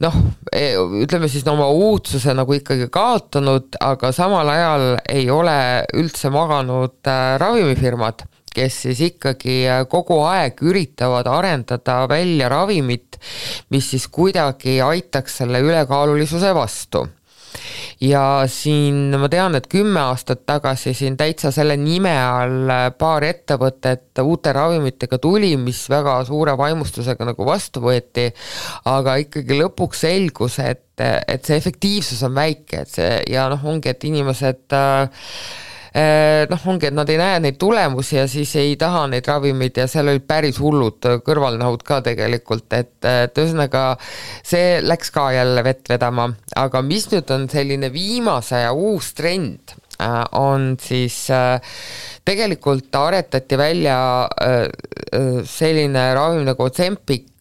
ütleme siis oma uudsuse nagu ikkagi kaotanud, aga samal ajal ei ole üldse maganud ravimifirmad, kes siis ikkagi kogu aeg üritavad arendada välja ravimit, mis siis kuidagi aitaks selle ülekaalulisuse vastu. Ja siin ma tean, et 10 aastat tagasi siin täitsa selle nime all paar ettevõtet uute ravimitega tuli, mis väga suure vaimustusega nagu vastu võeti, aga ikkagi lõpuks selgus, et see efektiivsus on väike, et see ja ongi, et inimesed ongi, et nad ei näe neid tulemusi ja siis ei taha neid ravimid ja seal olid päris hullud kõrvalnähud ka tegelikult, et ühesõnaga see läks ka jälle vett vedama, aga mis nüüd on selline viimase ja uus trend, on siis tegelikult aretati välja selline ravim nagu Ozempic,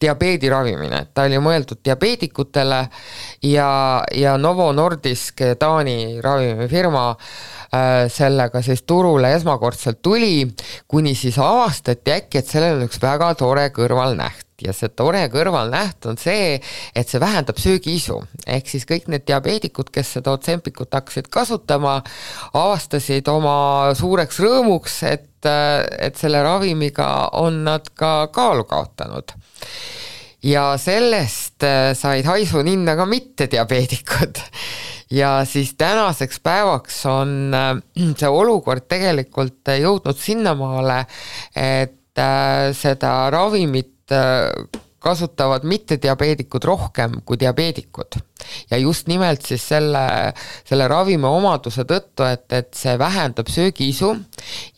diabeediravimine, ta oli mõeldud diabeedikutele ja Novo Nordisk, Taani ravimifirma, sellega siis turule esmakordselt tuli, kuni siis avastati äkki, et sellel on üks väga tore kõrvalnäht. Ja see tore kõrvalnäht on see, et see vähendab söögiisu. Ehk siis kõik need diabeedikud, kes seda Ozempikut hakkasid kasutama, avastasid oma suureks rõõmuks, et selle ravimiga on nad ka kaalu kaotanud. Ja sellest said haisu ninna ka mitte diabeedikud. Ja siis tänaseks päevaks on see olukord tegelikult jõudnud sinnamaale, et seda ravimit kasutavad mitte diabeedikud rohkem kui diabeedikud. Ja just nimelt siis selle ravimi omaduse tõttu, et see vähendab söögiisu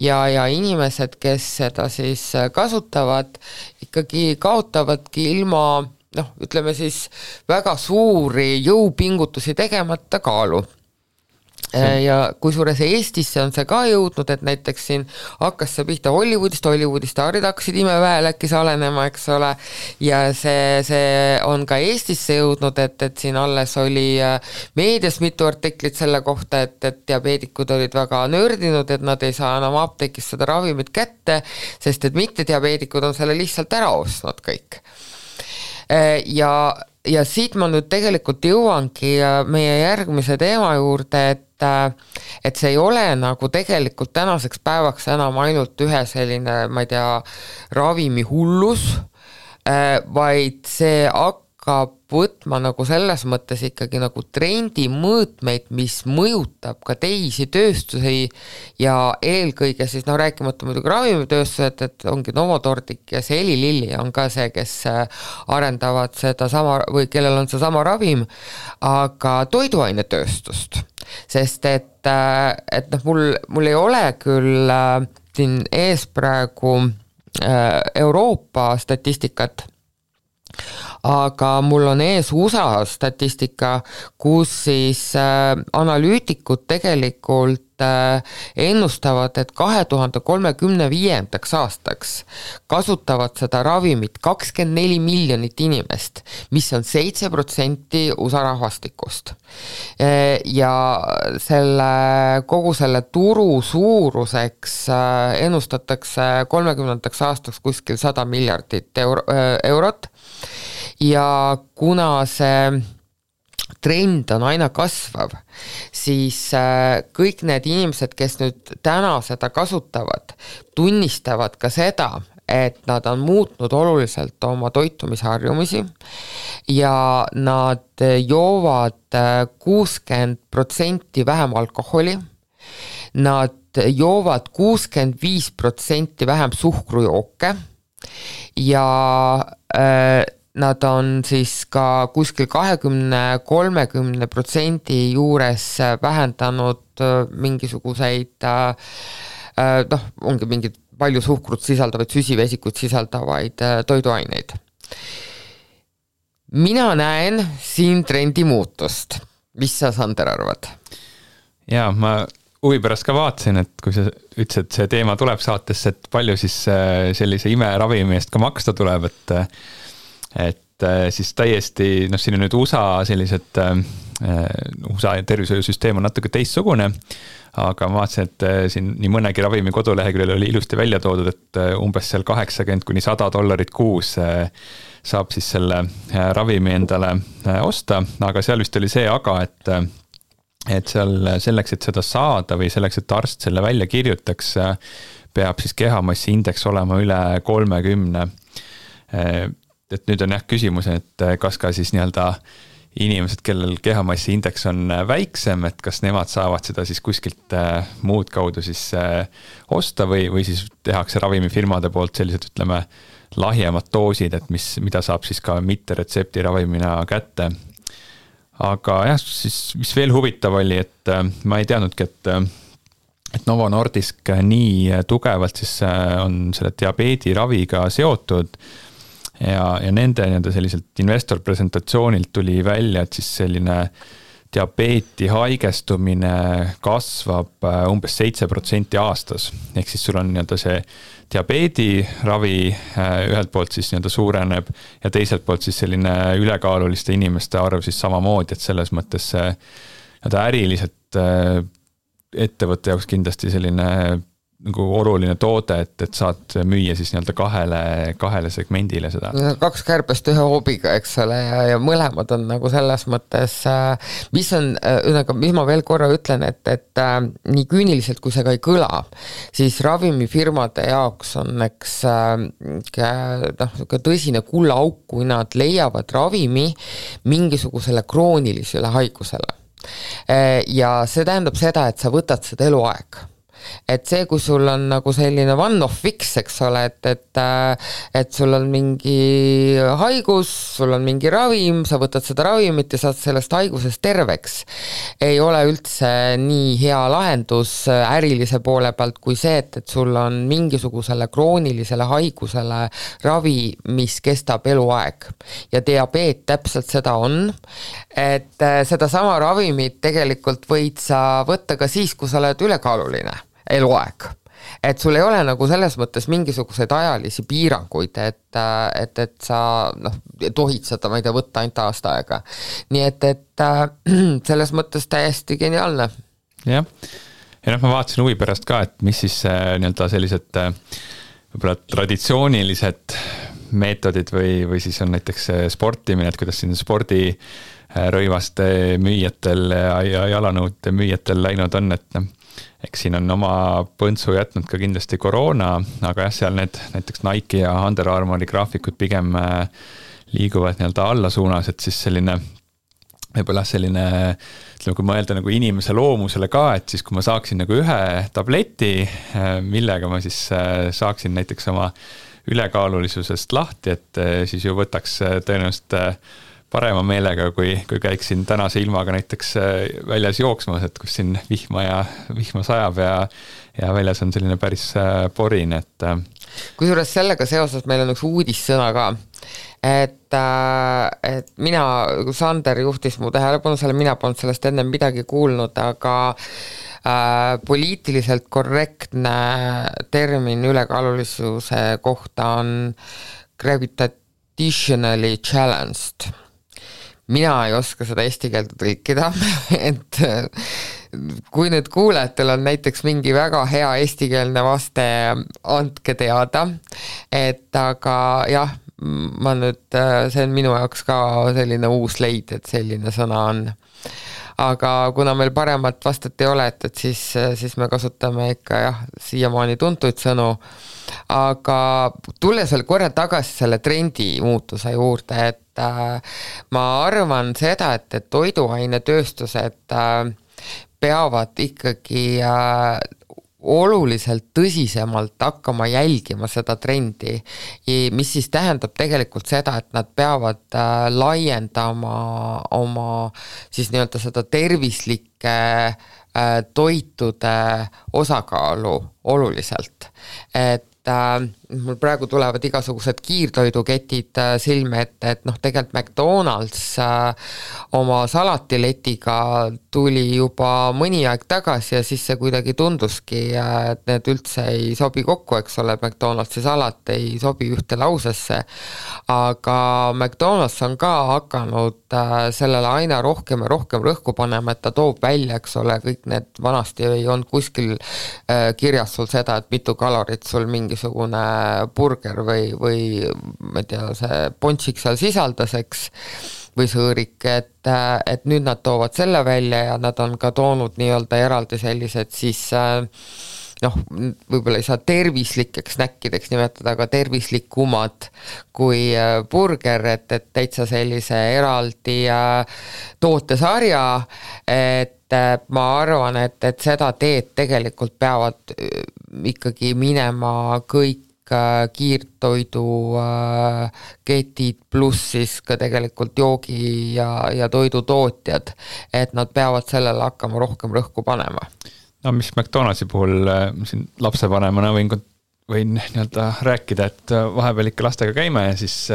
ja inimesed, kes seda siis kasutavad, ikkagi kaotavadki ilma ütleme siis väga suuri jõupingutusi tegemata kaalu. Ja kusjuures Eestisse on see ka jõudnud, et näiteks siin hakkas see pihta Hollywoodist staarid hakkasid imeväel äkki salenema, eks ole, ja see on ka Eestisse jõudnud, et siin alles oli meedias mitu artiklit selle kohta, et diabeedikud olid väga nördinud, et nad ei saa enam apteekis seda ravimit kätte, sest et mitte diabeedikud on selle lihtsalt ära ostnud kõik. Ja siit ma nüüd tegelikult jõuangi meie järgmise teema juurde, et see ei ole nagu tegelikult tänaseks päevaks enam ainult ühe selline, ma ei tea, ravimi hullus, vaid see hakkab võtma nagu selles mõttes ikkagi nagu trendi mõõtmeid, mis mõjutab ka teisi tööstusi ja eelkõige siis rääkimata muidugi ravimitööstused, et ongi Novo Nordisk ja see Eli Lilly on ka see, kes arendavad seda sama või kellel on see sama ravim, aga toiduainetööstust, sest et mul ei ole küll siin ees praegu Euroopa statistikat, aga mul on ees USA statistika, kus siis analüütikud tegelikult ennustavad, et 2035. aastaks kasutavad seda ravimit 24 miljonit inimest, mis on 7% USA rahvastikust. Ja kogu selle turu suuruseks ennustatakse 30. aastaks kuskil 100 miljardit eurot. Ja kuna see trend on aina kasvav, siis kõik need inimesed, kes nüüd täna seda kasutavad, tunnistavad ka seda, et nad on muutnud oluliselt oma toitumisharjumisi ja nad joovad 60% vähem alkoholi, nad joovad 65% vähem suhkrujooke ja nad on siis ka kuskil 20-30% juures vähendanud mingisuguseid ongi mingid palju suhkrut sisaldavaid, süsivesikut sisaldavaid toiduaineid. Mina näen siin trendi muutust. Mis sa, Sander, arvad? Jaa, ma huvi pärast ka vaatasin, et kui sa ütlesid, et see teema tuleb saatesse, et palju siis sellise imeravimi eest ka maksta tuleb, et siis täiesti, siin on nüüd USA sellised, USA tervishoiusüsteem on natuke teistsugune, aga ma vaatasin, et siin nii mõnegi ravimi koduleheküljel oli ilusti välja toodud, et umbes seal $80–100 kuus saab siis selle ravimi endale osta, aga seal vist oli see aga, et seal selleks, et seda saada või selleks, et arst selle välja kirjutaks, peab siis kehamassi indeks olema üle 30. Et nüüd on küsimus, et kas ka siis nii-öelda inimesed, kellel kehamassi indeks on väiksem, et kas nemad saavad seda siis kuskilt muud kaudu siis osta või siis tehakse ravimifirmade poolt sellised, ütleme, lahjemad doosid, et mida saab siis ka mitte retsepti ravimina kätte. Aga jah, siis mis veel huvitav oli, et ma ei teadnudki, et Novo Nordisk nii tugevalt siis on selle diabeediraviga seotud ja nende selliselt investor presentatsioonilt tuli välja, et siis selline diabeeti haigestumine kasvab umbes 7% aastas. Ehk siis sul on see diabeediravi ühelt poolt siis suureneb ja teiselt poolt siis selline ülekaaluliste inimeste arv siis samamoodi, et selles mõttes äriliselt ettevõtte jaoks kindlasti selline nagu oluline toode, et saad müüa siis kahele segmendile seda. 2 kärbest 1 hoobiga, eks ole, ja mõlemad on nagu selles mõttes, mis ma veel korra ütlen, et nii küüniliselt, kui see ka ei kõla, siis ravimifirmade jaoks on tõsine kullaauk, kui nad leiavad ravimi mingisugusele kroonilisele haigusele. Ja see tähendab seda, et sa võtad seda eluaeg. Et see, kui sul on nagu selline one-off fix, eks ole, et sul on mingi haigus, sul on mingi ravim, sa võtad seda ravimit ja saad sellest haigusest terveks, ei ole üldse nii hea lahendus ärilise poole pealt kui see, et sul on mingisugusele kroonilisele haigusele ravi, mis kestab eluaeg. Ja diabeet täpselt seda on, et seda sama ravimit tegelikult võid sa võtta ka siis, kui sa oled ülekaaluline eluaeg. Et sul ei ole nagu selles mõttes mingisuguseid ajalisi piiranguid, et sa tohid seda, ma ei tea, võtta ainult aasta aega. Nii et selles mõttes täiesti geniaalne. Jah, ja ma vaatasin huvi pärast ka, et mis siis sellised võib-olla traditsioonilised meetodid või siis on näiteks sportimine, et kuidas siin spordirõivaste müüjatel ja jalanõude müüjatel läinud on, et eks siin on oma põntsu jätnud ka kindlasti koroona, aga jah, seal need näiteks Nike ja Under Armouri graafikud pigem liiguvad alla suunas, et siis selline võib-olla selline, kui mõelda nagu inimese loomusele ka, et siis kui ma saaksin nagu ühe tableti, millega ma siis saaksin näiteks oma ülekaalulisusest lahti, et siis ju võtaks tõenäoliselt parema meelega, kui käiksin tänase ilmaga näiteks väljas jooksmas, et kus siin vihma sajab ja väljas on selline päris porin, et kusjuures sellega seoses meil on üks uudissõna ka, et mina, Sander juhtis mu tähelepanu selle, mina polnud sellest enne midagi kuulnud, aga poliitiliselt korrektne termin ülekaalulisuse kohta on gravitationally challenged. Mina ei oska seda eesti keelde tõlkida, et kui nüüd kuulajatel on näiteks mingi väga hea eestikeelne vaste, andke teada, et aga jah, ma nüüd, see on minu jaoks ka selline uus leid, et selline sõna on. Aga kuna meil paremat vastat ei ole, et siis me kasutame ikka jah, siiamaani tuntuid sõnu, aga tulles veel korra tagasi selle trendi muutuse juurde, et ma arvan seda, et toiduainetööstused peavad ikkagi oluliselt tõsisemalt hakkama jälgima seda trendi, mis siis tähendab tegelikult seda, et nad peavad laiendama oma siis nii-öelda seda tervislike toitude osakaalu oluliselt, et mul praegu tulevad igasugused kiirtoiduketid silme ette, et tegelikult McDonald's oma salatiletiga tuli juba mõni aeg tagasi ja siis see kuidagi tunduski, et need üldse ei sobi kokku, eks ole, McDonald'si salat ei sobi ühte lausesse, aga McDonald's on ka hakanud sellele aina rohkem ja rohkem rõhku panema, et ta toob välja, eks ole, kõik need vanasti ei olnud kuskil kirjas sul seda, et mitu kalorit sul mingisugune burger või ma ei tea, see pončik seal sisaldas, eks, või sõõrik, et nüüd nad toovad selle välja ja nad on ka toonud nii-öelda eraldi sellised siis võib-olla ei saa tervislikeks snäkkideks nimetada, aga tervislikumad kui burger, et täitsa sellise eraldi tootesarja, et ma arvan, et seda teed tegelikult peavad ikkagi minema kõik kiirtoidu ketid pluss siis ka tegelikult joogi ja toidutootjad, et nad peavad sellele hakkama rohkem rõhku panema. No mis McDonald'si puhul siin lapsevanemana võin nii-öelda rääkida, et vahepeal ikka lastega käime ja siis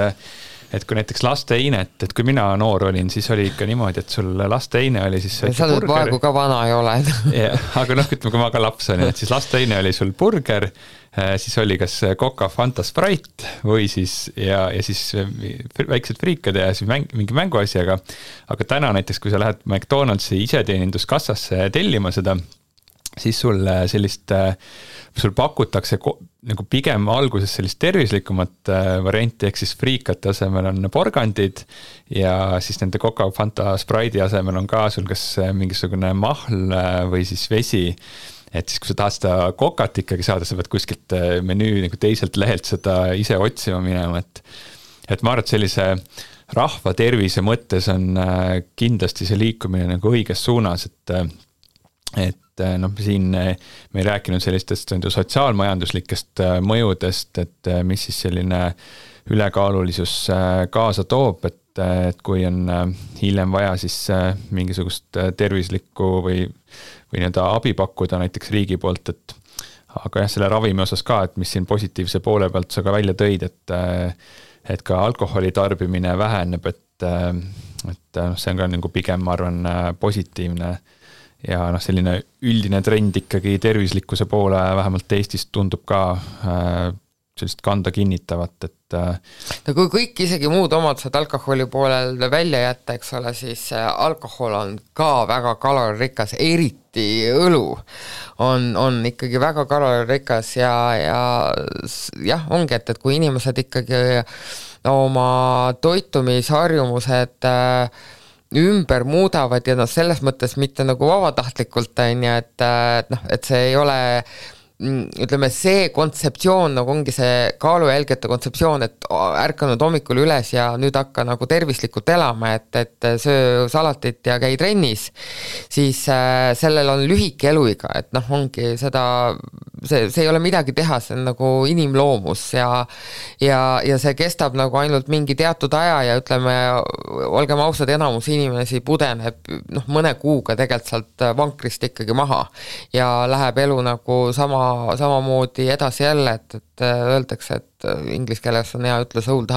et kui näiteks lasteinet, et kui mina noor olin, siis oli ikka niimoodi, et sul lasteine oli siis sa nüüd praegu ka vana ei ole. Aga ütleme, kui ma ka laps olin, et siis lasteine oli sul burger, siis oli kas Coca, Fanta, Sprite või siis ja siis väiksed friikad ja siis mingi mänguasjaga. Aga täna näiteks, kui sa lähed McDonald'si iseteeninduskassasse tellima seda, siis sul pakutakse nagu pigem alguses sellist tervislikumat varianti, ehk siis friikate asemel on porgandid ja siis nende Coca, Fanta, Sprite'i asemel on ka sul kas mingisugune mahl või siis vesi, et siis kui sa tahad seda kokat ikkagi saada, sa pead kuskilt menüü nagu teiselt lehelt seda ise otsima minema, et ma arvan, et sellise rahva tervise mõttes on kindlasti see liikumine nagu õiges suunas, et siin me ei rääkinud sellistest sotsiaalmajanduslikest mõjudest, et mis siis selline ülekaalulisus kaasa toob, et kui on hiljem vaja siis mingisugust tervislikku või nii-öelda abi pakkuda näiteks riigi poolt, aga jah, selle ravimi osas ka, et mis siin positiivse poole pealt sa ka välja tõid, et ka alkoholi tarbimine väheneb, et see on ka nagu pigem, ma arvan, positiivne ja selline üldine trend ikkagi tervislikkuse poole vähemalt Eestis tundub ka sellist kanda kinnitavat, et no kui kõik isegi muud omadused alkoholi poolel välja jätta, eks ole, siis alkohol on ka väga kaloririkas, eriti õlu on ikkagi väga kaloririkas ja jah, ongi, et kui inimesed ikkagi oma toitumisharjumused ümber muudavad ja selles mõttes mitte nagu vabatahtlikult on ja et see ei ole, ütleme, see kontseptsioon nagu ongi see kaalujälgete kontseptsioon, et ärkanud hommikul üles ja nüüd hakka nagu tervislikult elama, et söö salatit ja käi trennis, siis sellel on lühike eluiga, et ongi seda, see ei ole midagi teha, see on nagu inimloomus ja see kestab nagu ainult mingi teatud aja ja ütleme, olgem ausad, enamus inimesi pudeneb mõne kuuga tegelikult sealt vankrist ikkagi maha ja läheb elu nagu samamoodi edasi jälle, et öeldakse, et inglise keeles on hea ütlus old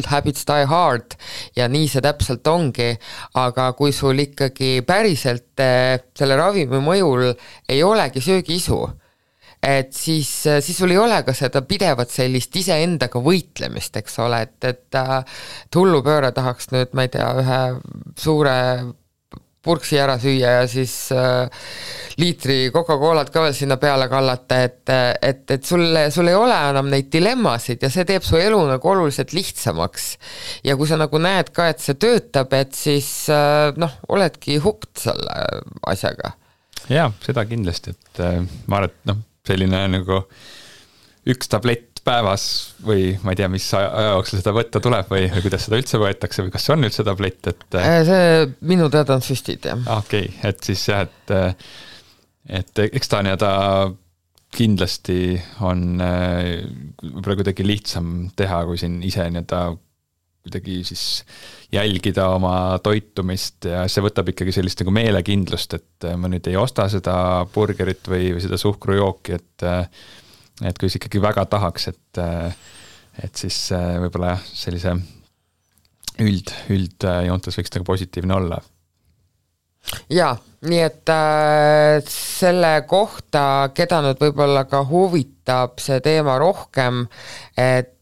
habits die hard ja nii see täpselt ongi, aga kui sul ikkagi päriselt selle ravimi mõjul ei olegi söögiisu, et siis sul ei ole ka seda pidevat sellist iseendaga võitlemist, eks ole, et hullupööre tahaks nüüd, ma ei tea, ühe suure purksi ära süüa ja siis liitri Coca-Colat ka veel sinna peale kallata, et sul ei ole enam neid dilemmasid ja see teeb su elu nagu oluliselt lihtsamaks. Ja kui sa nagu näed ka, et see töötab, et siis oledki hukt selle asjaga. Jaa, seda kindlasti, et ma arvan, et selline nagu üks tablett päevas või ma ei tea, mis aja jooksul seda võtta tuleb või kuidas seda üldse võetakse või kas see on üldse tablett, et see minu teada on süstid, jah. Okei, et siis jah, et eks ta kindlasti on võib-olla kuidagi lihtsam teha, kui siin ise kuidagi siis jälgida oma toitumist ja see võtab ikkagi sellist nagu meelekindlust, et ma nüüd ei osta seda burgerit või seda suhkrujooki, et kui see ikkagi väga tahaks, et siis võib-olla sellise üldjoontes võiks nagu positiivne olla. Jaa, nii et selle kohta, keda nüüd võib-olla ka huvitab see teema rohkem, et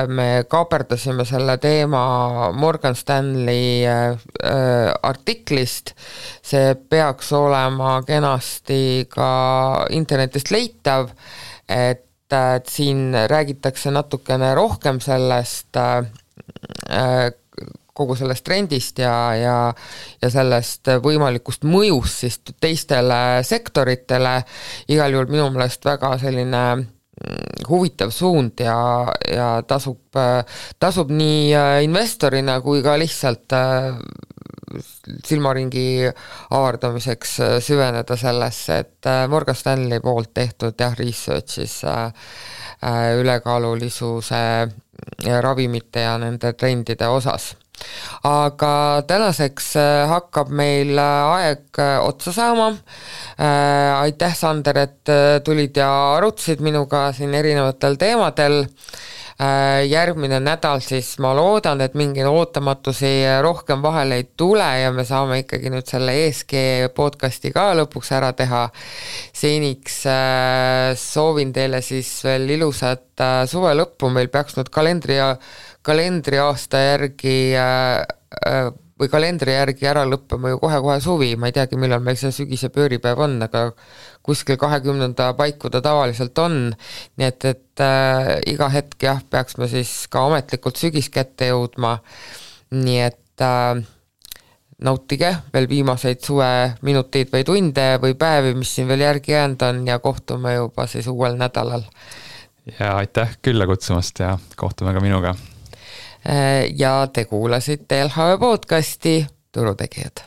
me kaaperdasime selle teema Morgan Stanley artiklist, see peaks olema kenasti ka internetist leitav, et siin räägitakse natukene rohkem sellest kogu sellest trendist ja sellest võimalikust mõjust siis teistele sektoritele. Igal juhul minu meelest väga selline huvitav suund ja tasub nii investorina kui ka lihtsalt silmaringi avardamiseks süveneda sellesse, et Morgan Stanley poolt tehtud researchis ülekaalulisuse ravimite ja nende trendide osas. Aga tänaseks hakkab meil aeg otsa saama. Aitäh, Sander, et tulid ja arutasid minuga siin erinevatel teemadel. Järgmine nädal siis ma loodan, et mingi ootamatusi rohkem vahele ei tule ja me saame ikkagi nüüd selle ESG podcasti ka lõpuks ära teha. Seniks soovin teile siis veel ilusat suve lõppu, meil peaks nüüd kalendriaasta järgi või kalendri järgi ära lõppema ju kohe suvi, ma ei teagi, millal meil see sügise pööripäev on, aga kuskil 20. paiku ta tavaliselt on, nii et iga hetk peaks me siis ka ametlikult sügis kätte jõudma, nii et nautige veel viimaseid suve minuteid või tunde või päevi, mis siin veel järgi jäänud on ja kohtume juba siis uuel nädalal. Ja aitäh külla kutsumast ja kohtume ka minuga. Ja te kuulasite LHV podcasti Turutegijad.